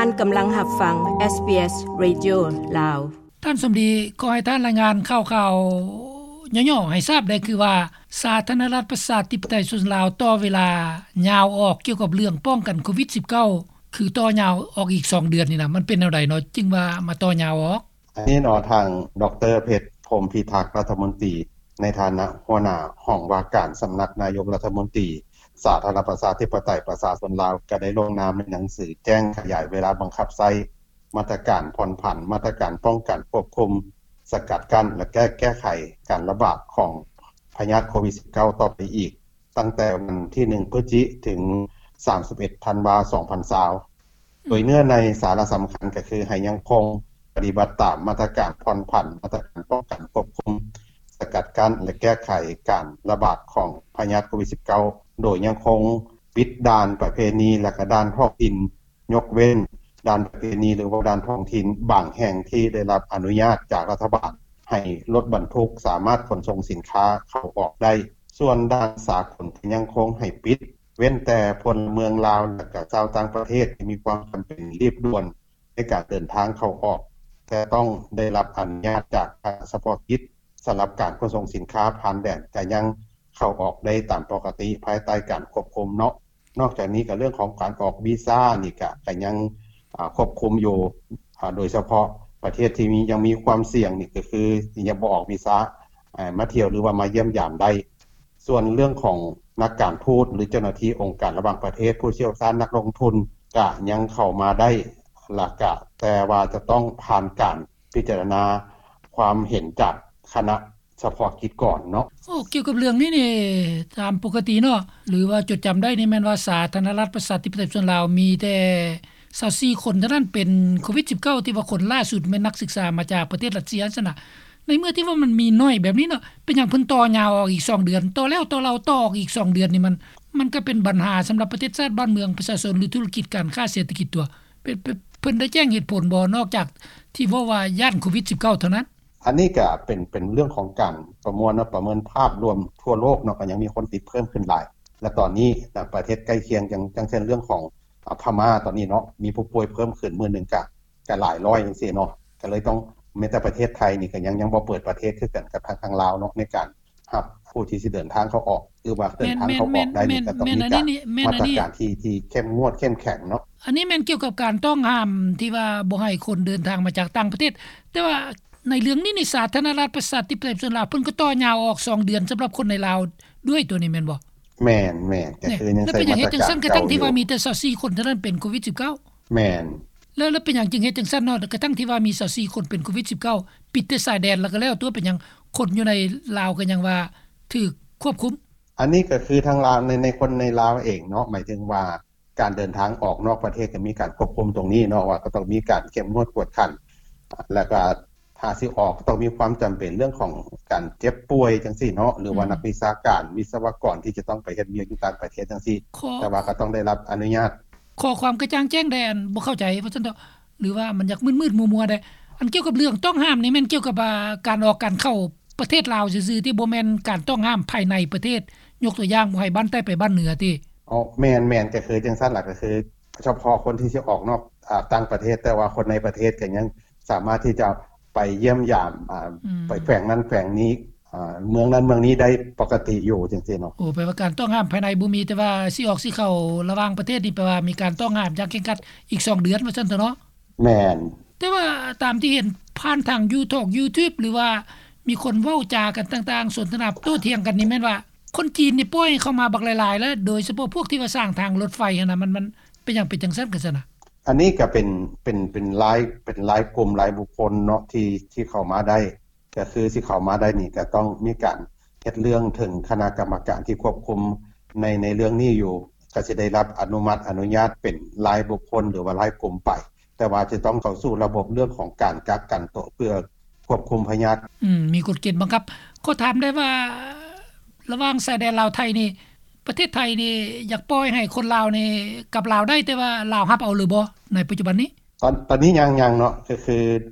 ທ່ານກຳລັງຮັບຟັງ ເອສບີເອສ ເຣດິໂອ ລາວ. ທ່ານສົມດີ, ຂໍໃຫ້ທ່ານລາຍງານຂ່າວໆຫຍໍ້ໆໃຫ້ຊາບແດ່ ຄືວ່າ ສາທາລະນະລັດປະຊາທິປະໄຕປະຊາຊົນລາວ ຕໍ່ເວລາຍາວອອກກ່ຽວກັບເລື່ອງປ້ອງກັນໂຄວິດສິບເກົ້າ ຄືຕໍ່ຍາວອອກອີກສອງເດືອນນີ້ນະ ມັນເປັນແນວໃດເນາະ ຈຶ່ງວ່າມາຕໍ່ຍາວອອກ? ອັນນີ້ເນາະ ທາງ ດຣ ເພັດ ພົມພິທັກ ລັດຖະມົນຕີ ໃນຖານະຫົວໜ້າຫ້ອງວ່າການສຳນັກນາຍົກລັດຖະມົນຕີ ສາທາລະນະລັດປະຊາທິປະໄຕປະຊາຊົນລາວ ກໍໄດ້ລົງນາມໃນໜັງສືແຈ້ງຂະຫຍາຍເວລາບັງຄັບໃຊ້ມາດຕະການຜ່ອນຜັນ ມາດຕະການປ້ອງກັນ, ຄວບຄຸມ, ສະກັດກັ້ນ ແລະ ແກ້, ແກ້ໄຂການລະບາດຂອງພະຍາດໂຄວິດສິບເກົ້າ ຕໍ່ໄປອີກ ຕັ້ງແຕ່ວັນທີໜຶ່ງ ພຶດຈິ ເຖິງ ສາມສິບເອັດ ທັນວາ ສອງພັນຊາວ ໂດຍເນື້ອໃນສາລະສຳຄັນກໍຄືໃຫ້ຍັງຄົງປະຕິບັດຕາມມາດຕະການຜ່ອນຜັນ, ມາດຕະການປ້ອງກັນ, ຄວບຄຸມ, ສະກັດກັ້ນ ແລະ ແກ້ໄຂການລະບາດຂອງພະຍາດໂຄວິດສິບເກົ້າ ໂດຍຍັງຄົງປິດດ່ານປະເພນີ ແລະ ກະດ່ານທ້ອງຖິ່ນ, ຍົກເວັ້ນດ່ານປະເພນີ ຫຼືວ່າດ່ານທ້ອງຖິ່ນບາງແຫ່ງທີ່ໄດ້ຮັບອະນຸຍາດຈາກລັດຖະບານ ໃຫ້ລົດບັນທຸກສາມາດຂົນສົ່ງສິນຄ້າເຂົ້າອອກໄດ້. ສ່ວນດ່ານສາກົນກໍຍັງຄົງໃຫ້ປິດ ເວັ້ນແຕ່ພົນລະເມືອງລາວ ແລະ ກະຊາວຕ່າງປະເທດທີ່ມີຄວາມຈຳເປັນລີບດ່ວນໃນການເດີນທາງເຂົ້າອອກ ແຕ່ຕ້ອງໄດ້ຮັບອະນຸຍາດຈາກຄະນະສະເພາະກິດ. ສຳລັບການຂົນສົ່ງສິນຄ້າຜ່ານແດນກໍຍັງເຂົ້າອອກໄດ້ຕາມປົກກະຕິ ພາຍໃຕ້ການຄວບຄຸມເນາະ. ນອກຈາກນີ້ກໍເລື່ອງຂອງການອອກວີຊານີ້ກໍ ກໍຍັງ ອາ ຄວບຄຸມຢູ່ ອາ ໂດຍສະເພາະປະເທດທີ່ມີ ຍັງມີຄວາມສ່ຽງນີ້ກໍຄືຍັງບໍ່ອອກວີຊາ ອາ ມາທ່ຽວ ຫຼືວ່າມາຢ້ຽມຢາມໄດ້. ສ່ວນເລື່ອງຂອງນັກການທູດ ຫຼື ເຈົ້າໜ້າທີ່ອົງການລະຫວ່າງປະເທດ, ຜູ້ຊ່ຽວຊານ, ນັກລົງທຶນ ກະຍັງເຂົ້າມາໄດ້ ລະກະ ແຕ່ວ່າຈະຕ້ອງຜ່ານການພິຈາລະນາຄວາມເຫັນຈາກຄະນະສະເພາະກິດກ່ອນເນາະ. ໂອ້ ກ່ຽວກັບເລື່ອງນີ້ນີ້ ຕາມປົກກະຕິເນາະ ຫຼືວ່າຈົດຈຳໄດ້ນີ້ ແມ່ນວ່າສາທາລະນະລັດປະຊາທິປະໄຕປະຊາຊົນລາວ ມີແຕ່ຊາວສີ່ຄົນເທົ່ານັ້ນເປັນໂຄວິດສິບເກົ້າ ທີ່ວ່າຄົນລ່າສຸດແມ່ນນັກສຶກສາມາຈາກປະເທດຣັດເຊຍຊັ້ນນະ. ໃນເມື່ອທີ່ວ່າມັນມີໜ້ອຍແບບນີ້ເນາະ ເປັນຫຍັງເພິ່ນຕໍ່ຍາວອອກອີກສອງເດືອນ ຕໍ່ແລ້ວຕໍ່ເລົ່າ ຕໍ່ອອກອີກສອງເດືອນນີ້ ມັນ ມັນກໍເປັນບັນຫາສຳລັບປະເທດຊາດບ້ານເມືອງປະຊາຊົນ ຫຼື ທຸລະກິດການຄ້າເສດຖະກິດຕົວະ. ເປັນ ເປັນ ເພິ່ນໄດ້ແຈ້ງເຫດຜົນບໍ່ ນອກຈາກທີ່ເວົ້າວ່າຢ້ານໂຄວິດສິບເກົ້າເທົ່ານັ້ນ? ອັນນີ້ກໍເປັນ ເປັນເລື່ອງຂອງການປະມວນເນາະ ປະເມີນພາບລວມທົ່ວໂລກເນາະ ກໍຍັງມີຄົນຕິດເພີ່ມຂຶ້ນຫຼາຍ ແລະ ຕອນນີ້ນະ ປະເທດໃກ້ຄຽງ ຢ່າງ ຢ່າງເຊັ່ນເລື່ອງຂອງ ອາ ພະມ້າຕອນນີ້ເນາະ ມີຜູ້ປ່ວຍເພີ່ມຂຶ້ນມື້ໜຶ່ງກະ ກະຫຼາຍຮ້ອຍຈັ່ງຊີ້ເນາະ ກໍເລີຍຕ້ອງ ແມ້ແຕ່ປະເທດໄທນີ້ກໍຍັງ ຍັງບໍ່ເປີດປະເທດຄືກັນກັບທາງ ທາງລາວເນາະ ໃນການຮັບຜູ້ທີ່ຊິເດີນທາງເຂົ້າອອກ ຫຼືວ່າເດີນທາງເຂົ້າອອກໄດ້ນີ້ ກໍຕ້ອງມີການ ມາດຕະການທີ່ ທີ່ເຂັ້ມງວດເຂັ້ມແຂງເນາະ. ອັນນີ້ແມ່ນກ່ຽວກັບການຕ້ອງຫ້າມທີ່ວ່າບໍ່ໃຫ້ຄົນເດີນທາງມາຈາກຕ່າງປະເທດ ແຕ່ວ່າ ໃນເລື່ອງນີ້ນີ້ ສາທາລະນະລັດປະຊາທິປະໄຕປະຊາຊົນລາວ ເພິ່ນກໍຕໍ່ຍາວອອກສອງເດືອນສຳລັບຄົນໃນລາວດ້ວຍ ຕົວນີ້ແມ່ນບໍ່? ແມ່ນໆ ກໍຄືຍັງໃຊ້ມາດຕະການເກົ່າຢູ່. ແລ້ວເປັນຫຍັງເຮັດຈັ່ງຊັ້ນ ກະທັງທີ່ວ່າມີແຕ່ຊາວສີ່ຄົນເທົ່ານັ້ນເປັນໂຄວິດສິບເກົ້າ? ແມ່ນ. ແລ້ວ ແລ້ວເປັນຫຍັງຈຶ່ງເຮັດຈັ່ງຊັ້ນເນາະ ກະທັງທີ່ວ່າມີຊາວສີ່ຄົນເປັນໂຄວິດສິບເກົ້າ ປິດແຕ່ຊາຍແດນແລ້ວກໍແລ້ວຕົວະ ເປັນຫຍັງຄົນຢູ່ໃນລາວກໍຍັງວ່າຖືກຄວບຄຸມ? ອັນນີ້ກໍຄືທາງລາວ ໃນ ໃນຄົນໃນລາວເອງເນາະ ໝາຍເຖິງວ່າ ການເດີນທາງອອກນອກປະເທດກໍມີການຄວບຄຸມຕົງນີ້ເນາະ ວ່າກໍຕ້ອງມີການເຂັ້ມງວດກວດຂັນ ແລ້ວກໍຖ້າຊິອອກກໍຕ້ອງມີຄວາມຈຳເປັນເລື່ອງຂອງການເຈັບປ່ວຍຈັ່ງຊີ້ເນາະ ຫຼືວ່ານັກວິຊາການ ວິສະວະກອນທີ່ຈະຕ້ອງໄປເຮັດວຽກຢູ່ຕ່າງປະເທດຈັ່ງຊີ້ ແຕ່ວ່າກໍຕ້ອງໄດ້ຮັບອະນຸຍາດ. ຂໍຄວາມກະຈ່າງແຈ້ງແດ່ ອັນບໍ່ເຂົ້າໃຈວ່າຊັ້ນເຖາະ ຫຼືວ່າມັນຢາກມືດໆມົວໆແດ່. ອັນກ່ຽວກັບເລື່ອງຕ້ອງຫ້າມນີ້ແມ່ນກ່ຽວກັບ ອາ ການອອກການເຂົ້າປະເທດລາວຊື່ໆ ທີ່ບໍ່ແມ່ນການຕ້ອງຫ້າມພາຍໃນປະເທດ ຍົກຕົວຢ່າງບໍ່ໃຫ້ບ້ານໃຕ້ໄປບ້ານເໜືອຕິ? ອໍ ແມ່ນໆ ກໍຄືຈັ່ງຊັ້ນລະ ກໍຄືສະເພາະຄົນທີ່ຊິອອກນອກ ອາ ຕ່າງປະເທດ ແຕ່ວ່າຄົນໃນປະເທດກໍຍັງສາມາດທີ່ຈະໄປຢ້ຽມຢາມ ອາ ໄປແຂວງນັ້ນແຂວງນີ້ ອາ ເມືອງນັ້ນເມືອງນີ້ໄດ້ປົກກະຕິຢູ່ຈັ່ງຊີ້ເນາະ. ໂອ້ ແປວ່າການຕ້ອງຫ້າມພາຍໃນບໍ່ມີ ແຕ່ວ່າຊິອອກຊິເຂົ້າລະຫວ່າງປະເທດນີ້ ແປວ່າມີການຕ້ອງຫ້າມຢ່າງເຄັ່ງຄັດອີກສອງເດືອນວ່າຊັ້ນເຖາະເນາະ. ແມ່ນ. ແຕ່ວ່າຕາມທີ່ເຫັນຜ່ານທາງຢູທອກ ຢູທູບ ຫຼືວ່າມີຄົນເວົ້າຈາກັນຕ່າງໆ ສົນທະນາໂຕ້ຖຽງກັນນີ້ ແມ່ນວ່າຄົນຈີນນີ້ປ່ອຍເຂົ້າມາບັກຫຼາຍໆ ແລ້ວ ໂດຍສະເພາະພວກທີ່ວ່າສ້າງທາງລົດໄຟຫັ້ນນະ ມັນ ມັນເປັນຫຍັງເປັນຈັ່ງຊັ້ນກັນຊັ້ນນະ? ອັນນີ້ກໍເປັນ ເປັນ ເປັນລາຍ ເປັນລາຍກຸ່ມລາຍບຸກຄົນເນາະ ທີ່ ທີ່ເຂົ້າມາໄດ້ ກໍຄືຊິເຂົ້າມາໄດ້ນີ້ ກໍຕ້ອງມີການເຮັດເລື່ອງເຖິງຄະນະກຳມະການທີ່ຄວບຄຸມໃນ ໃນເລື່ອງນີ້ຢູ່ ກໍຊິໄດ້ຮັບອະນຸມັດອະນຸຍາດເປັນລາຍບຸກຄົນ ຫຼືວ່າລາຍກຸ່ມໄປ ແຕ່ວ່າຈະຕ້ອງເຂົ້າສູ່ລະບົບເລື່ອງຂອງການກັກກັນໂຕເພື່ອຄວບຄຸມພະຍາດ. ອືມ ມີກົດເກນບັງຄັບ. ຂໍຖາມໄດ້ວ່າ ລະຫວ່າງຊາຍແດນລາວໄທນີ້ ປະເທດໄທນີ້ຢາກປ່ອຍໃຫ້ຄົນລາວນີ້ກັບລາວໄດ້ ແຕ່ວ່າລາວຮັບເອົາຫຼືບໍ່ໃນປັດຈຸບັນນີ້? ຕອນ ຕອນນີ້ຍັງ ຍັງເນາະ ກໍຄື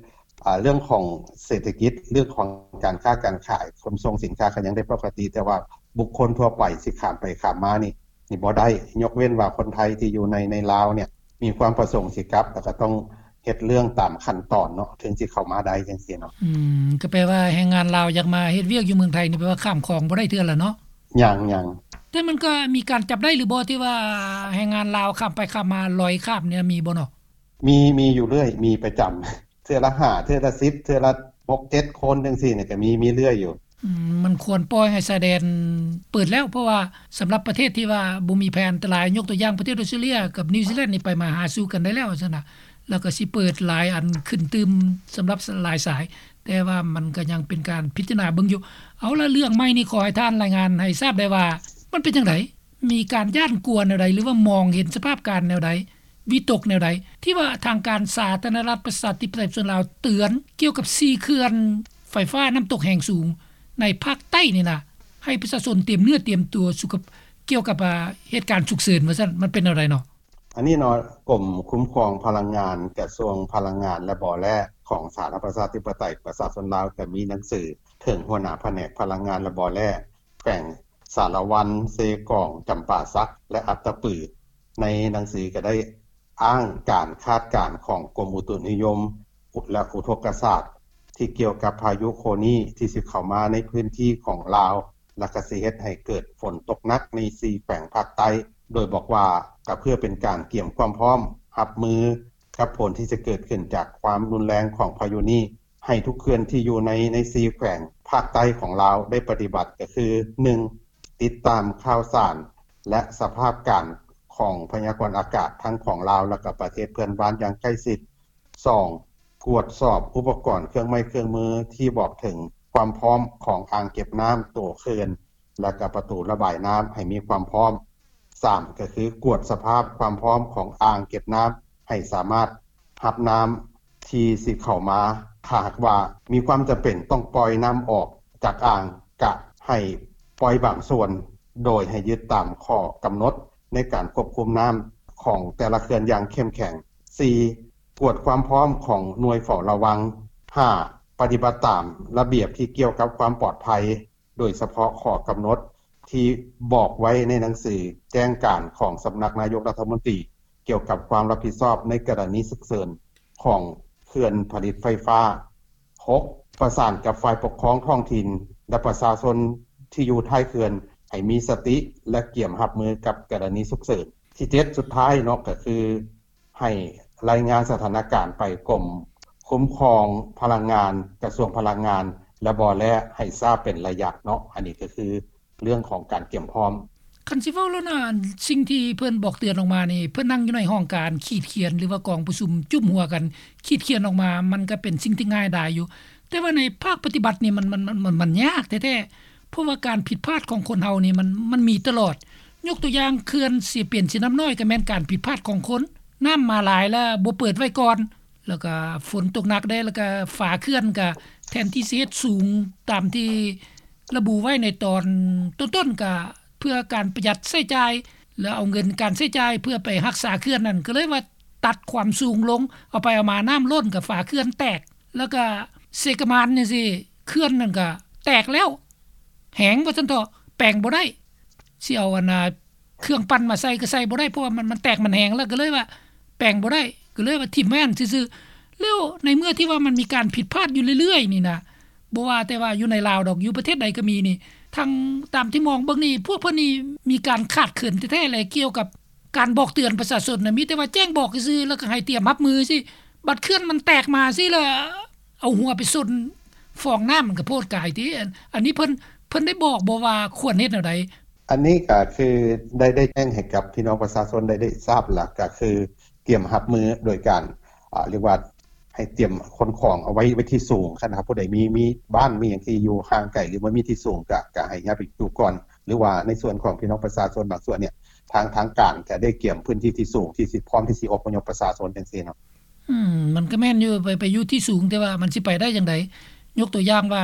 ອາ ເລື່ອງຂອງເສດຖະກິດ ເລື່ອງຂອງການຄ້າການຂາຍ ຂົນສົ່ງສິນຄ້າກໍຍັງໄດ້ປົກກະຕິ ແຕ່ວ່າບຸກຄົນທົ່ວໄປຊິຂ້າມໄປຂ້າມມານີ້ ນີ້ບໍ່ໄດ້ ຍົກເວັ້ນວ່າຄົນໄທທີ່ຢູ່ໃນ ໃນລາວເນຍ ມີຄວາມປະສົງຊິກັບ ແລ້ວກໍຕ້ອງເຮັດເລື່ອງຕາມຂັ້ນຕອນເນາະ ເຖິງຊິເຂົ້າມາໄດ້ຈັ່ງຊີ້ເນາະ. ອືມ ກໍແປວ່າແຮງງານລາວຢາກມາເຮັດວຽກຢູ່ເມືອງໄທນີ້ ແປວ່າຂ້າມຂອງບໍ່ໄດ້ເທື່ອລະເນາະ? ຍັງໆ. ແຕ່ມັນກໍມີການຈັບໄດ້ຫຼືບໍ່ ທີ່ວ່າແຮງງານລາວຂ້າມໄປຂ້າມມາ ລອຍຂ້າມນີ້ ມີບໍ່ເນາະ? ມີ ມີຢູ່ເລື້ອຍ ມີປະຈຳ ເທື່ອລະຫ້າ ເທື່ອລະສິບ ເທື່ອລະຫົກເຈັດຄົນຈັ່ງຊີ້ນີ້ ກໍມີ ມີເລື້ອຍຢູ່. ອືມ ມັນຄວນປ່ອຍໃຫ້ຊາຍແດນເປີດແລ້ວ ເພາະວ່າສຳລັບປະເທດທີ່ວ່າບໍ່ມີແຜນອັນຕະລາຍ ຍົກຕົວຢ່າງປະເທດອອສເຕຣເລັຽກັບນິວຊີແລນນີ້ ໄປມາຫາສູ່ກັນໄດ້ແລ້ວຊັ້ນນະ ແລ້ວກໍຊິເປີດຫຼາຍອັນຂຶ້ນຕື່ມສຳລັບຫຼາຍສາຍ ແຕ່ວ່າມັນກໍຍັງເປັນການພິຈາລະນາເບິ່ງຢູ່. ເອົາລະ ເລື່ອງໃໝ່ນີ້ ຂໍໃຫ້ທ່ານລາຍງານໃຫ້ຊາບໄດ້ວ່າ ມັນເປັນຈັ່ງໃດ? ມີການຢ້ານກົວແນວໃດ ຫຼືວ່າມອງເຫັນສະພາບການແນວໃດ? ວິຕົກແນວໃດ ທີ່ວ່າທາງການສາທາລະນະລັດປະຊາທິປະໄຕປະຊາຊົນລາວເຕືອນກ່ຽວກັບສີ່ເຂື່ອນໄຟຟ້ານ້ຳຕົກແຮງສູງໃນພາກໃຕ້ນີ້ນະ ໃຫ້ປະຊາຊົນຕຽມເນື້ອຕຽມຕົວສຸຂະ ກ່ຽວກັບ ອາ ເຫດການສຸກເສີນວ່າຊັ້ນ ມັນເປັນແນວໃດເນາະ? ອັນນີ້ເນາະ ກົມຄຸ້ມຄອງພະລັງງານ ກະຊວງພະລັງງານ ແລະ ບໍ່ແຮ່ ຂອງສາທາລະນະລັດປະຊາທິປະໄຕປະຊາຊົນລາວ ກໍມີໜັງສືເຖິງຫົວໜ້າພະແນກພະລັງງານ ແລະ ບໍ່ແຮ່ ແຂວງສາລະວັນ, ເຊກອງ, ຈຳປາສັກ ແລະ ອັດຕະປື. ໃນໜັງສືກໍໄດ້ອ້າງການຄາດການຂອງກົມອຸຕຸນິຍົມ ແລະ ອຸທົກກະສາດ ທີ່ກ່ຽວກັບພາຍຸໂຄນີທີ່ຊິເຂົ້າມາໃນພື້ນທີ່ຂອງລາວ ແລະ ກໍຊິເຮັດໃຫ້ເກີດຝົນຕົກໜັກໃນສີ່ແຂວງພາກໃຕ້ ໂດຍບອກວ່າ ກໍເພື່ອເປັນການກຽມຄວາມພ້ອມຮັບມືກັບຜົນທີ່ຈະເກີດຂຶ້ນຈາກຄວາມຮຸນແຮງຂອງພາຍຸນີ້ ໃຫ້ທຸກເຂື່ອນທີ່ຢູ່ໃນ ໃນສີ່ແຂວງພາກໃຕ້ຂອງລາວໄດ້ປະຕິບັດ ກໍຄື ໜຶ່ງ ຕິດຕາມຂ່າວສານ ແລະ ສະພາບການຂອງພະຍາກອນອາກາດ ທັງຂອງລາວ ແລະ ກໍປະເທດເພື່ອນບ້ານຢ່າງໃກ້ຊິດ. ສອງ ກວດສອບອຸປະກອນເຄື່ອງໄມ້ເຄື່ອງມືທີ່ບອກເຖິງຄວາມພ້ອມຂອງອ່າງເກັບນ້ຳ, ຕົວເຂື່ອນ ແລະ ກໍປະຕູລະບາຍນ້ຳໃຫ້ມີຄວາມພ້ອມ. ສາມ ກໍຄືກວດສະພາບຄວາມພ້ອມຂອງອ່າງເກັບນ້ຳ ໃຫ້ສາມາດຮັບນ້ຳທີ່ຊິເຂົ້າມາ. ຖ້າຫາກວ່າມີຄວາມຈຳເປັນຕ້ອງປ່ອຍນ້ຳອອກຈາກອ່າງ ກະໃຫ້ປ່ອຍບາງສ່ວນ ໂດຍໃຫ້ຍຶດຕາມຂໍ້ກຳນົດໃນການຄວບຄຸມນ້ຳຂອງແຕ່ລະເຂື່ອນຢ່າງເຂັ້ມແຂງ. ສີ່ ກວດຄວາມພ້ອມຂອງໜ່ວຍເຝົ້າລະວັງ. ຫ້າ ປະຕິບັດຕາມລະບຽບທີ່ກ່ຽວກັບຄວາມປອດໄພ ໂດຍສະເພາະຂໍ້ກຳນົດທີ່ບອກໄວ້ໃນໜັງສືແຈ້ງການຂອງສຳນັກນາຍົກລັດຖະມົນຕີ ກ່ຽວກັບຄວາມຮັບຜິດຊອບໃນກໍລະນີສຸກເສີນຂອງເຂື່ອນຜະລິດໄຟຟ້າ. ຫົກ ປະສານກັບຝ່າຍປົກຄອງທ້ອງຖິ່ນ ແລະ ປະຊາຊົນທີ່ຢູ່ທ້າຍເຂື່ອນ ໃຫ້ມີສະຕິ ແລະ ກຽມຮັບມືກັບກໍລະນີສຸກເສີນ. ທີເຈັດ ສຸດທ້າຍເນາະ ກໍຄື ໃຫ້ລາຍງານສະຖານະການໄປກົມຄຸ້ມຄອງພະລັງງານ, ກະຊວງພະລັງງານ ແລະ ບໍ່ແຮ່ ໃຫ້ຊາບເປັນໄລຍະເນາະ. ອັນນີ້ກໍຄືເລື່ອງຂອງການກຽມພ້ອມ. ຄັນຊິເວົ້າແລ້ວນະ ສິ່ງທີ່ເພິ່ນບອກເຕືອນອອກມານີ້ ເພິ່ນນັ່ງຢູ່ໃນຫ້ອງການຂີດຂຽນ ຫຼືວ່າກອງປະຊຸມຈຸ້ມຫົວກັນຂີດຂຽນອອກມາ ມັນກໍເປັນສິ່ງທີ່ງ່າຍດາຍຢູ່. ແຕ່ວ່າໃນພາກປະຕິບັດນີ້ ມັນ ມັນ ມັນ ມັນ ມັນຍາກແທ້ໆ ເພາະວ່າການຜິດພາດຂອງຄົນເຮົານີ້ ມັນ ມັນມີຕະຫຼອດ. ຍົກຕົວຢ່າງ ເຂື່ອນເຊປຽນເຊນ້ຳນ້ອຍ ກໍແມ່ນການຜິດພາດຂອງຄົນ, ນ້ຳມາຫຼາຍແລ້ວບໍ່ເປີດໄວ້ກ່ອນ ແລ້ວກໍຝົນຕົກໜັກເດ້ ແລ້ວກໍຝາເຂື່ອນກໍແທນທີ່ຊິເຮັດສູງຕາມທີ່ລະບຸໄວ້ໃນຕອນຕົ້ນໆ ກໍເພື່ອການປະຢັດໃຊ້ຈ່າຍ ແລ້ວເອົາເງິນການໃຊ້ຈ່າຍເພື່ອໄປຮັກສາເຂື່ອນນັ້ນ ກໍເລີຍວ່າຕັດຄວາມສູງລົງ, ເອົາໄປເອົາມານ້ຳລົ້ນກໍຝາເຂື່ອນແຕກ ແລ້ວກໍເຊກະມານຈັ່ງຊີ້ ເຂື່ອນນັ້ນກໍແຕກແລ້ວ ແຫງວ່າຊັ້ນເຖາະ ແປງບໍ່ໄດ້ ຊິເອົາອັນນ່າເຄື່ອງປັ່ນມາໃສ່ກໍໃສ່ບໍ່ໄດ້ ເພາະວ່າມັນ ມັນແຕກມັນແຫງແລ້ວ ກໍເລີຍວ່າແປງບໍ່ໄດ້ ກໍເລີຍວ່າຖິ້ມໄວ້ຫັ້ນຊື່ໆ. ແລ້ວໃນເມື່ອທີ່ວ່າມັນມີການຜິດພາດຢູ່ເລື້ອຍໆນີ້ນະ ບໍ່ວ່າແຕ່ວ່າຢູ່ໃນລາວດອກ ຢູ່ປະເທດໃດກໍມີນີ້ ທັງຕາມທີ່ມອງເບິ່ງນີ້ ພວກເພິ່ນນີ້ມີການຂາດເຂີນແທ້ໆແຫຼະ ກ່ຽວກັບການບອກເຕືອນປະຊາຊົນນະ ມີແຕ່ວ່າແຈ້ງບອກຊື່ໆ ແລ້ວກໍໃຫ້ຕຽມຮັບມືຊີ້ ບັດເຂື່ອນມັນແຕກມາຊີ້ ແລ້ວເອົາຫົວໄປຊົນຟອງນ້ຳ ມັນກໍໂພດກາຍຕິ. ອັນ ອັນນີ້ເພິ່ນ ເພິ່ນໄດ້ບອກບໍ່ວ່າຄວນເຮັດແນວໃດ? ອັນນີ້ກໍຄືໄດ້ ໄດ້ແຈ້ງໃຫ້ກັບພີ່ນ້ອງປະຊາຊົນໄດ້ ໄດ້ຊາບລະ ກໍຄືຕຽມຮັບມືໂດຍການ ອາ ເອີ້ນວ່າໃຫ້ຕຽມຂົນຂອງເອົາໄວ້ ໄວ້ທີ່ສູງ. ຄັນຫາກຜູ້ໃດມີ ມີບ້ານມີຫຍັງທີ່ຢູ່ຫ່າງໄກ ຫຼືວ່າມີທີ່ສູງ ກະ ກະໃຫ້ຍ້າຍໄປຢູ່ກ່ອນ ຫຼືວ່າໃນສ່ວນຂອງພີ່ນ້ອງປະຊາຊົນບາງສ່ວນນີ້ ທາງ ທາງການກະໄດ້ກຽມພື້ນທີ່ທີ່ສູງ ທີ່ຊິ ພ້ອມທີ່ຊິອົບພະຍົບປະຊາຊົນຈັ່ງຊີ້ເນາະ. ອືມ ມັນກໍແມ່ນຢູ່ ໄປ ໄປຢູ່ທີ່ສູງ ແຕ່ວ່າມັນຊິໄປໄດ້ຈັ່ງໃດ? ຍົກຕົວຢ່າງວ່າ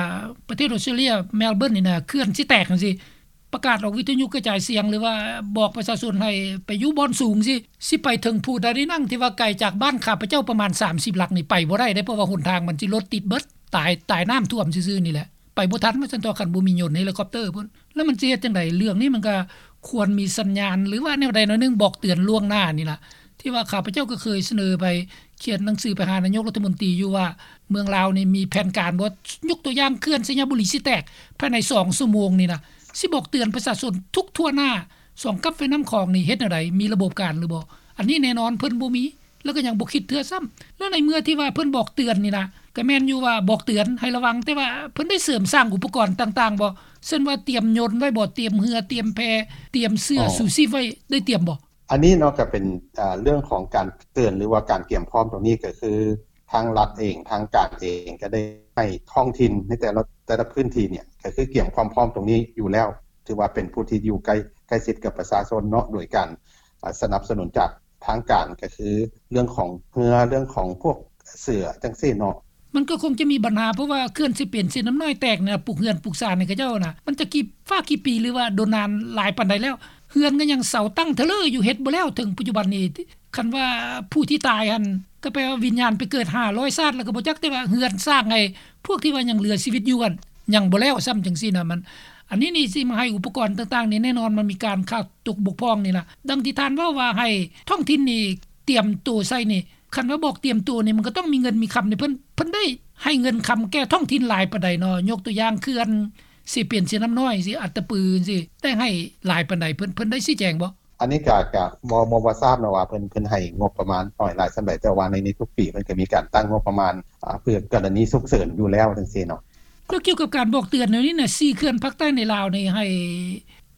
ປະເທດອອສເຕຣເລັຽ ແມລເບີນນີ້ນະ ເຂື່ອນຊິແຕກຈັ່ງຊີ້ ປະກາດອອກວິທະຍຸກະຈາຍສຽງ ຫຼືວ່າບອກປະຊາຊົນໃຫ້ໄປຢູ່ບ່ອນສູງຊີ້ ຊິໄປເຖິງພູດາລີນັງ ທີ່ວ່າໄກຈາກບ້ານຂ້າພະເຈົ້າປະມານສາມສິບຫຼັກນີ້ ໄປບໍ່ໄດ້ເດ້ ເພາະວ່າຫົນທາງມັນຊິລົດຕິດເບິດ ຕາຍ ຕາຍນ້ຳຖ້ວມຊື່ໆນີ້ແຫຼະ ໄປບໍ່ທັນວ່າຊັ້ນເຖາະ ຄັນບໍ່ມີຍົນເຮລິຄອບເຕີພຸ້ນ. ແລ້ວມັນຊິເຮັດຈັ່ງໃດ? ເລື່ອງນີ້ມັນກໍຄວນມີສັນຍານ ຫຼືວ່າແນວໃດແນວໜຶ່ງບອກເຕືອນລ່ວງໜ້ານີ້ລະ ທີ່ວ່າຂ້າພະເຈົ້າກໍເຄີຍສະເໜີໄປ ຂຽນໜັງສືໄປຫານາຍົກລັດຖະມົນຕີຢູ່ວ່າ ເມືອງລາວນີ້ມີແຜນການບໍ່? ຍົກຕົວຢ່າງເຂື່ອນໄຊຍະບູລີຊິແຕກພາຍໃນສອງຊົ່ວໂມງນີ້ນະ ຊິບອກເຕືອນປະຊາຊົນທຸກທົ່ວໜ້າສອງກັບແມ່ນ້ຳຂອງນີ້ເຮັດແນວໃດ? ມີລະບົບການຫຼືບໍ່? ອັນນີ້ແນ່ນອນເພິ່ນບໍ່ມີ ແລ້ວກໍຍັງບໍ່ຄິດເທື່ອຊ້ຳ. ແລ້ວໃນເມື່ອທີ່ວ່າເພິ່ນບອກເຕືອນນີ້ນະ ກໍແມ່ນຢູ່ວ່າບອກເຕືອນໃຫ້ລະວັງ ແຕ່ວ່າເພິ່ນໄດ້ເສີມສ້າງອຸປະກອນຕ່າງໆບໍ່? ເຊັ່ນວ່າຕຽມຍົນໄວ້ບໍ່? ຕຽມເຮືອ ຕຽມແພ ຕຽມເສື້ອ ອໍ ຊູຊີບໄວ້ ໄດ້ຕຽມບໍ່? ອັນນີ້ເນາະ ກໍເປັນ ເອີ ເລື່ອງຂອງການເຕືອນ ຫຼືວ່າການກຽມພ້ອມຕົງນີ້ ກໍຄືທາງລັດເອງ ທາງການເອງ ກໍໄດ້ໃຫ້ທ້ອງຖິ່ນໃນແຕ່ລະ ແຕ່ລະພື້ນທີ່ເນຍ ກໍຄືກຽມຄວາມພ້ອມຕົງນີ້ຢູ່ແລ້ວ ຖືວ່າເປັນຜູ້ທີ່ຢູ່ໃກ້ ໃກ້ຊິດກັບປະຊາຊົນເນາະ ໂດຍການ ສະໜັບສະໜູນຈາກທາງການ ກໍຄືເລື່ອງຂອງເຮືອ ເລື່ອງຂອງພວກເສື້ອຈັ່ງຊີ້ເນາະ. ມັນກໍຄົງຈະມີບັນຫາ ເພາະວ່າເຂື່ອນເຊປຽນເຊນ້ຳນ້ອຍແຕກນະ ປຸກເຮືອນປຸກຊານໃຫ້ເຂົາເຈົ້ານະ ມັນຈະກີ້ຟ້າກີ້ປີ ຫຼືວ່າດົນນານຫຼາຍປານໃດແລ້ວ? ເຮືອນກໍຍັງເສົາຕັ້ງທະເລີຢູ່ ເຮັດບໍ່ແລ້ວເຖິງປັດຈຸບັນນີ້. ຄັນວ່າຜູ້ທີ່ຕາຍຫັ້ນ ກໍແປວ່າວິນຍານໄປເກີດຫ້າຮ້ອຍຊາດແລ້ວກໍບໍ່ຈັກ ແຕ່ວ່າເຮືອນສ້າງໃຫ້ພວກທີ່ວ່າຍັງເຫຼືອຊີວິດຢູ່ຫັ້ນ ຍັງບໍ່ແລ້ວຊ້ຳ ຈັ່ງຊີ້ນະ. ມັນ ອັນນີ້ນີ້ຊິມາໃຫ້ອຸປະກອນຕ່າງໆນີ້ ແນ່ນອນມັນມີການຂາດຕົກບົກຜ່ອງນີ້ລະ. ດັ່ງທີ່ທ່ານເວົ້າວ່າໃຫ້ທ້ອງຖິ່ນນີ້ຕຽມໂຕໃສ່ນີ້ ຄັນວ່າບອກຕຽມໂຕນີ້ ມັນກໍຕ້ອງມີເງິນມີຄຳໃຫ້ເພິ່ນ ເພິ່ນໄດ້ໃຫ້ເງິນຄຳແກ່ທ້ອງຖິ່ນຫຼາຍປານໃດເນາະ? ຍົກຕົວຢ່າງເຂື່ອນເຊປຽນເຊນ້ຳນ້ອຍຊີ້ ອັດຕະປືຊີ້ ໄດ້ໃຫ້ຫຼາຍປານໃດ? ເພິ່ນ ເພິ່ນໄດ້ຊີ້ແຈງບໍ່? ອັນນີ້ກະ ກະບໍ່ ບໍ່ ບໍ່ຊາບເນາະວ່າເພິ່ນ ເພິ່ນໃຫ້ງົບປະມານນ້ອຍຫຼາຍສ່ຳໃດ ແຕ່ວ່າໃນ ໃນທຸກປີເພິ່ນກໍມີການຕັ້ງງົບປະມານ ອາ ເພື່ອກໍລະນີສຸກເສີນຢູ່ແລ້ວຈັ່ງຊີ້ເນາະ. ແລ້ວກ່ຽວກັບການບອກເຕືອນແນວນີ້ນະ ສີ່ເຂື່ອນພາກໃຕ້ໃນລາວນີ້ໃຫ້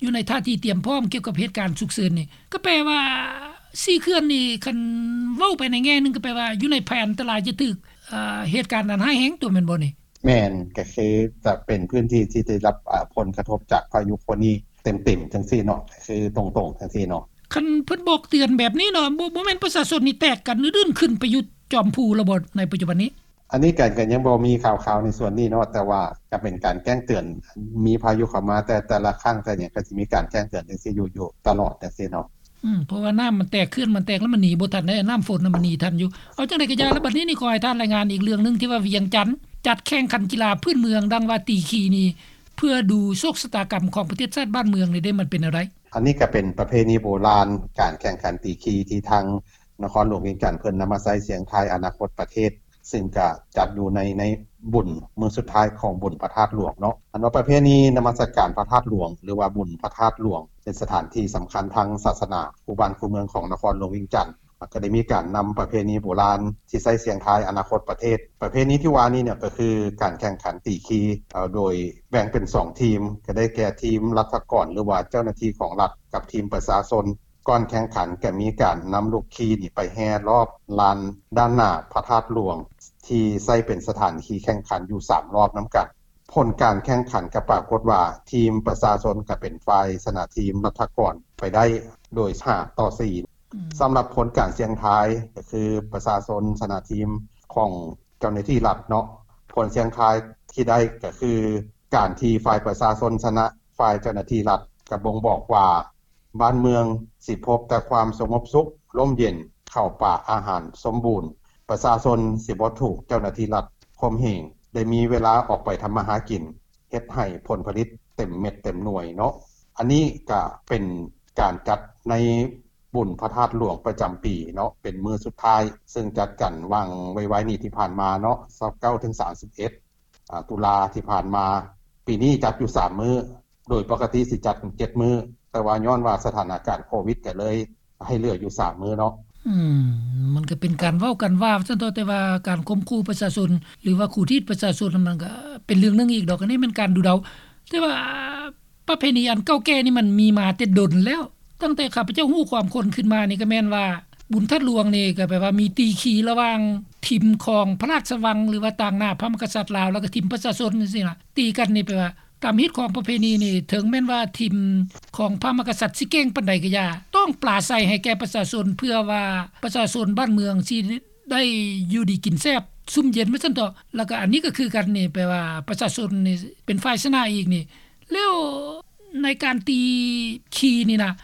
ຢູ່ໃນທ່າທີຕຽມພ້ອມກ່ຽວກັບເຫດການສຸກເສີນນີ້ ກໍແປວ່າສີ່ເຂື່ອນນີ້ ຄັນເວົ້າໄປໃນແງ່ໜຶ່ງ ກໍແປວ່າຢູ່ໃນແຜນຕະລາຍຈະຖືກ ເອີ ເຫດການອັນຮ້າຍແຮງຕົວະ ແມ່ນບໍ່ນີ້? ແມ່ນ ກໍຄືຈະເປັນພື້ນທີ່ທີ່ໄດ້ຮັບ ອາ ຜົນກະທົບຈາກພາຍຸໂຄນີເຕັມໆ ຈັ່ງຊີ້ເນາະ ກໍຄືຕົງໆ ຈັ່ງຊີ້ເນາະ. ຄັນເພິ່ນບອກເຕືອນແບບນີ້ເນາະ ບໍ່ ບໍ່ແມ່ນປະຊາຊົນນີ້ແຕກກັນອື່ນໆ ຂຶ້ນໄປຢູ່ຈອມພູແລ້ວບໍ່ໃນປັດຈຸບັນນີ້? ອັນນີ້ກໍ ກໍຍັງບໍ່ມີຂ່າວໆ ໃນສ່ວນນີ້ເນາະ ແຕ່ວ່າກໍເປັນການແຈ້ງເຕືອນ ມີພາຍຸເຂົ້າມາແຕ່ ແຕ່ລະຄັ້ງ ແຕ່ຫຍັງ ກໍຊິມີການແຈ້ງເຕືອນຈັ່ງຊີ້ຢູ່ ຢູ່ຕະຫຼອດຈັ່ງຊີ້ເນາະ. ອືມ ເພາະວ່ານ້ຳມັນແຕກ ເຂື່ອນມັນແຕກແລ້ວມັນໜີບໍ່ທັນເດ້ ນ້ຳຝົນນະມັນໜີທັນຢູ່. ເອົາຈັ່ງໃດກໍຢ່າ ແລ້ວບັດນີ້ນີ້ຂໍໃຫ້ທ່ານລາຍງານອີກເລື່ອງໜຶ່ງ ທີ່ວ່າວຽງຈັນຈັດແຂ່ງຂັນກິລາພື້ນເມືອງ ດັ່ງວ່າຕີຄີນີ້ ເພື່ອດູໂຊກຊະຕາກຳຂອງປະເທດຊາດບ້ານເມືອງນີ້ເດ້ ມັນເປັນແນວໃດ? ອັນນີ້ກໍເປັນປະເພນີໂບລານ ການແຂ່ງຂັນຕີຄີທີ່ທາງນະຄອນຫຼວງວຽງຈັນເພິ່ນນຳມາໃຊ້ສຽງທາຍອະນາຄົດປະເທດ ຊຶ່ງກະຈັດຢູ່ໃນ ໃນບຸນມື້ສຸດທ້າຍຂອງບຸນພະທາດຫຼວງເນາະ. ອັນວ່າປະເພນີນະມັດສະການພະທາດຫຼວງ ຫຼືວ່າບຸນພະທາດຫຼວງ ເປັນສະຖານທີ່ສຳຄັນທາງສາສະໜາຄູ່ບ້ານຄູ່ເມືອງຂອງນະຄອນຫຼວງວຽງຈັນ ແລ້ວກໍໄດ້ມີການນຳປະເພນີໂບລານທີ່ໃຊ້ສຽງທາຍອະນາຄົດປະເທດ. ປະເພນີທີ່ວ່ານີ້ເນຍ ກໍຄືການແຂ່ງຂັນຕີຄີ ເອີ ໂດຍແບ່ງເປັນສອງທີມ ກໍໄດ້ແກ່ທີມລັດຖະກອນ ຫຼືວ່າເຈົ້າໜ້າທີ່ຂອງລັດ ກັບທີມປະຊາຊົນ. ກ່ອນແຂ່ງຂັນກໍມີການນຳລູກຄີນີ້ໄປແຫ່ລອບລານດ້ານໜ້າພະທາດຫຼວງ ທີ່ໃຊ້ເປັນສະຖານທີ່ແຂ່ງຂັນຢູ່ສາມລອບນຳກັນ. ຜົນການແຂ່ງຂັນກໍປາກົດວ່າ ທີມປະຊາຊົນກໍເປັນຝ່າຍຊະນະທີມລັດຖະກອນໄປໄດ້ໂດຍຫ້າຕໍ່ສີ່. ອືມ ສຳລັບຜົນການສ່ຽງທາຍ ກໍຄືປະຊາຊົນຊະນະທີມຂອງເຈົ້າໜ້າທີ່ລັດເນາະ. ຜົນສ່ຽງທາຍທີ່ໄດ້ກໍຄື ການທີ່ຝ່າຍປະຊາຊົນຊະນະຝ່າຍເຈົ້າໜ້າທີ່ລັດ ກໍບົ່ງບອກວ່າ ບ້ານເມືອງຊິພົບແຕ່ຄວາມສະຫງົບສຸກ ຮົ່ມເຢັນ, ເຂົ້າປາອາຫານສົມບູນ, ປະຊາຊົນຊິບໍ່ຖືກເຈົ້າໜ້າທີ່ລັດຂົ່ມເຫງ, ໄດ້ມີເວລາອອກໄປທຳມາຫາກິນ, ເຮັດໃຫ້ຜົນຜະລິດເຕັມເມັດເຕັມໜ່ວຍເນາະ. ອັນນີ້ກະເປັນການຈັດໃນບຸນພະທາດຫຼວງປະຈຳປີເນາະ, ເປັນມື້ສຸດທ້າຍ, ເຊິ່ງຈັດກັນຫວ່າງໄວໆນີ້ທີ່ຜ່ານມາເນາະ, ຊາວເກົ້າ ເຖິງ ສາມສິບເອັດ ອ່າ ຕຸລາທີ່ຜ່ານມາ. ປີນີ້ຈັດຢູ່ສາມມື້, ໂດຍປົກກະຕິຊິຈັດເຈັດມື້, ແຕ່ວ່າຍ້ອນວ່າສະຖານະການໂຄວິດກໍເລີຍໃຫ້ເຫຼືອຢູ່ສາມມື້ເນາະ. ອືມ ມັນກໍເປັນການເວົ້າກັນວ່າຊັ້ນເຖາະ, ແຕ່ວ່າການຂົ່ມຂູ່ປະຊາຊົນ ຫຼືວ່າຂູດຮີດປະຊາຊົນ ມັນກໍເປັນເລື່ອງໜຶ່ງອີກດອກ. ອັນນີ້ແມ່ນການດູເດົາ, ແຕ່ວ່າປະເພນີອັນເກົ່າແກ່ນີ້ມັນມີມາແຕ່ດົນແລ້ວ. ຕັ້ງແຕ່ຂ້າພະເຈົ້າຮູ້ຄວາມຄົນຂຶ້ນມານີ້ ກໍແມ່ນວ່າບຸນທາດຫຼວງນີ້ ກໍແປວ່າມີຕີຄີລະຫວ່າງທີມຂອງພະລາຊະວັງ ຫຼືວ່າຕາງໜ້າພະມະຫາກະສັດລາວ ແລ້ວກໍທີມປະຊາຊົນຈັ່ງຊີ້ນະ. ຕີກັນນີ້ແປວ່າຕາມຮີດຄອງປະເພນີນີ້ ເຖິງແມ່ນວ່າທີມຂອງພະມະຫາກະສັດຊິເກັ່ງປານໃດກໍຢ່າ ຕ້ອງປາໄສໃຫ້ແກ່ປະຊາຊົນ ເພື່ອວ່າປະຊາຊົນບ້ານເມືອງຊິໄດ້ຢູ່ດີກິນແຊບ ຊຸ່ມເຢັນວ່າຊັ້ນເຖາະ. ແລ້ວກໍອັນນີ້ກໍຄືກັນນີ້ ແປວ່າປະຊາຊົນນີ້ເປັນຝ່າຍຊະນະອີກນີ້. ແລ້ວໃນການຕີຄີນີ້ນະ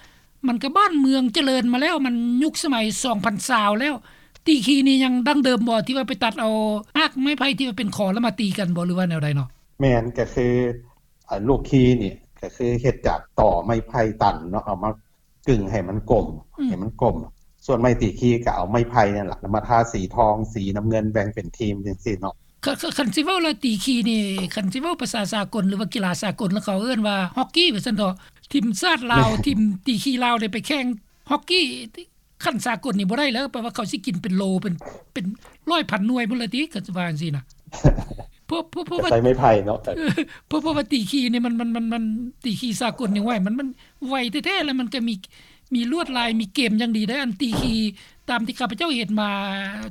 ມັນກໍບ້ານເມືອງຈະເລີນມາແລ້ວ, ມັນຍຸກສະໄໝສອງພັນຊາວແລ້ວ. ຕີຄີນີ້ຍັງດັ້ງເດີມບໍ່ ທີ່ວ່າໄປຕັດເອົາຮາກໄມ້ໄຜ່ທີ່ວ່າເປັນຂໍແລ້ວມາຕີກັນບໍ່ ຫຼືວ່າແນວໃດເນາະ? ແມ່ນ, ກໍຄື ອາ ລູກຄີນີ້ ກໍຄືເຮັດຈາກຕໍໄມ້ໄຜ່ຕັນເນາະ, ເອົາມາກຶງໃຫ້ມັນກົມ, ອືມ ໃຫ້ມັນກົມ, ສ່ວນໄມ້ຕີຄີກໍເອົາໄມ້ໄຜ່ນັ້ນລະມາທາສີທອງ ສີນ້ຳເງິນ ແບ່ງເປັນທີມຈັ່ງຊີ້ເນາະ. ຄັນຊິເວົ້າລະຕີຄີນີ້ ຄັນຊິເວົ້າພາສາສາກົນ ຫຼືວ່າກິລາສາກົນລະ ເຂົາເອີ້ນວ່າຮອກກີ້ວ່າຊັ້ນເຖາະ. ທີມຊາດລາວ ທີມຕີຄີລາວໄດ້ໄປແຂ່ງຮອກກີ້ ຂັ້ນສາກົນນີ້ບໍ່ໄດ້ແລ້ວ ແປວ່າເຂົາຊິກິນເປັນໂລ ເປັນ ເປັນຮ້ອຍພັນໜ່ວຍພຸ້ນລະຕິ ຄັນຊິວ່າຈັ່ງຊີ້ນະ. ເພາະ ເພາະ ເພາະວ່າ ໃຊ້ໄມ້ໄຜ່ເນາະ ເພາະ ເພາະວ່າຕີຄີນີ້ມັນ ມັນ ມັນ ມັນ ຕີຄີສາກົນນີ້ ໂອ້ຍ ມັນ ມັນໄວແທ້ໆ ແລ້ວມັນກໍມີ ມີລວດລາຍ ມີເກມຢ່າງດີເດ້. ອັນຕີຄີຕາມທີ່ຂ້າພະເຈົ້າເຫັນມາ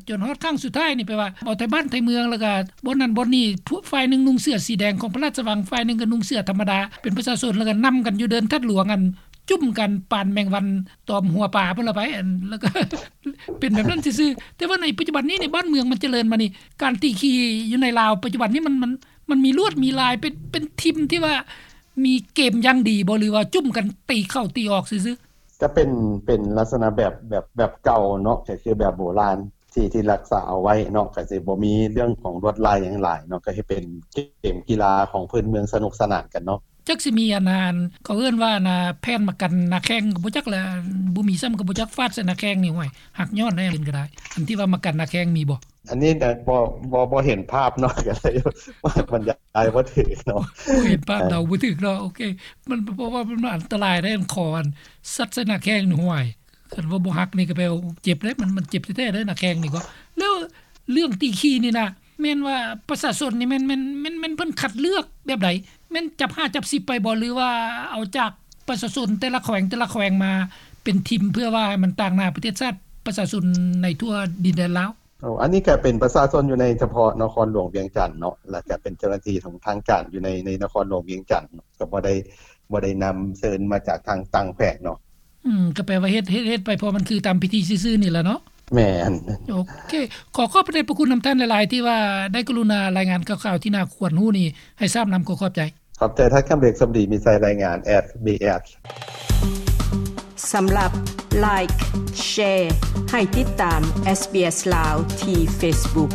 ຈົນຮອດຄັ້ງສຸດທ້າຍນີ້ ແປວ່າເອົາໄທບ້ານໄທເມືອງ ແລ້ວກໍບ່ອນນັ້ນບ່ອນນີ້ ພວກ ຝ່າຍໜຶ່ງນຸ່ງເສື້ອສີແດງຂອງພະລາຊະວັງ ຝ່າຍໜຶ່ງກໍນຸ່ງເສື້ອທຳມະດາ ເປັນປະຊາຊົນ ແລ້ວກໍນຳກັນຢູ່ເດີ່ນທັດຫຼວງ ອັນ ຈຸ້ມກັນປານແມງວັນຕອມຫົວປາພຸ້ນລະໄປ ອັນ ແລ້ວກໍ ເປັນແບບນັ້ນຊື່ໆ. ແຕ່ວ່າໃນປັດຈຸບັນນີ້ໃນບ້ານເມືອງມັນຈະເລີນມານີ້ ການຕີຂີ່ຢູ່ໃນລາວປັດຈຸບັນນີ້ ມັນ ມັນ ມັນມີລວດມີລາຍ ເປັນ ເປັນທີມທີ່ວ່າມີເກມຢ່າງດີບໍ່ ຫຼືວ່າຈຸ້ມກັນຕີເຂົ້າຕີອອກຊື່ໆ? ຈະເປັນ ເປັນລັກສະນະແບບ ແບບ ແບບເກົ່າເນາະ ກໍຄືແບບໂບລານ ທີ່ ທີ່ຮັກສາເອົາໄວ້ເນາະ ກໍຊິບໍ່ມີເລື່ອງຂອງລວດລາຍຫຍັງຫຼາຍເນາະ ກໍເຮັດເປັນເກມກິລາຂອງພື້ນເມືອງ ສະໜຸກສະໜານກັນເນາະ. ຈັກຊິມີອັນນັ້ນ ເຂົາເອີ້ນວ່າອັນນາ ແຜ່ນມາກັນໜ້າແຂ້ງກໍບໍ່ຈັກແຫຼະ ບໍ່ມີຊ້ຳກໍບໍ່ຈັກ ຟາດໃສ່ໜ້າແຂ້ງນີ້ ໂອ້ຍ ຫັກຍ້ອນໄດ້ ເປັນກໍໄດ້. ອັນທີ່ວ່າມາກັນໜ້າແຂ້ງມີບໍ່? ອັນນີ້ນະ ບໍ່ ບໍ່ ບໍ່ເຫັນພາບເນາະ ກໍເລີຍບັນຍາຍບໍ່ຖືກເນາະ ບໍ່ເຫັນພາບ ເດົາບໍ່ຖືກເນາະ. ໂອເຄ ມັນ ເພາະວ່າມັນອັນຕະລາຍໄດ໋ ອັນຄໍອັນສັດໃສ່ໜ້າແຂ້ງນີ້ ໂອ້ຍ ຄັນວ່າບໍ່ຫັກນີ້ກໍແປວ່າເຈັບເດ້ ມັນ ມັນເຈັບແທ້ໆເດ້ ໜ້າແຂ້ງນີ້ກໍ. ແລ້ວເລື່ອງຕີຂີ່ນີ້ນະ ແມ່ນວ່າປະຊາຊົນນີ້ແມ່ນ ແມ່ນ ແມ່ນ ແມ່ນເພິ່ນຄັດເລືອກແບບໃດ? ແມ່ນຈັບຫ້າຈັບສິບໄປບໍ່ ຫຼືວ່າເອົາຈາກປະຊາຊົນແຕ່ລະແຂວງ ແຕ່ລະແຂວງມາເປັນທີມ ເພື່ອວ່າໃຫ້ມັນຕາງໜ້າປະເທດຊາດ ປະຊາຊົນໃນທົ່ວດິນແດນລາວ? ໂອ້ ອັນນີ້ກໍເປັນປະຊາຊົນຢູ່ໃນສະເພາະນະຄອນຫຼວງວຽງຈັນເນາະ ແລ້ວກໍເປັນເຈົ້າໜ້າທີ່ຂອງທາງການຢູ່ໃນ ໃນນະຄອນຫຼວງວຽງຈັນເນາະ ກໍບໍ່ໄດ້ ບໍ່ໄດ້ນຳເຊີນມາຈາກທາງຕ່າງແຂວງເນາະ. ອືມ ກໍແປວ່າເຮັດ ເຮັດ ເຮັດໄປເພາະມັນຄືຕາມພິທີຊື່ໆນີ້ລະເນາະ. ແມ່ນ. ໂອເຄ ຂໍຂອບພະໄດພະຄຸນນຳທ່ານຫຼາຍໆ ທີ່ວ່າໄດ້ກະລຸນາລາຍງານຂ່າວໆ ທີ່ໜ້າຄວນຮູ້ນີ້ໃຫ້ຊາບນຳ. ຂໍຂອບໃຈ. ຂອບໃຈທ່ານຄຳເລັກ ສົມດີມີໄຊ ລາຍງານ ເອສບີເອສ. ສຳລັບ Like Share ໃຫ້ຕິດຕາມ SBS ລາວ ທີ່ Facebook.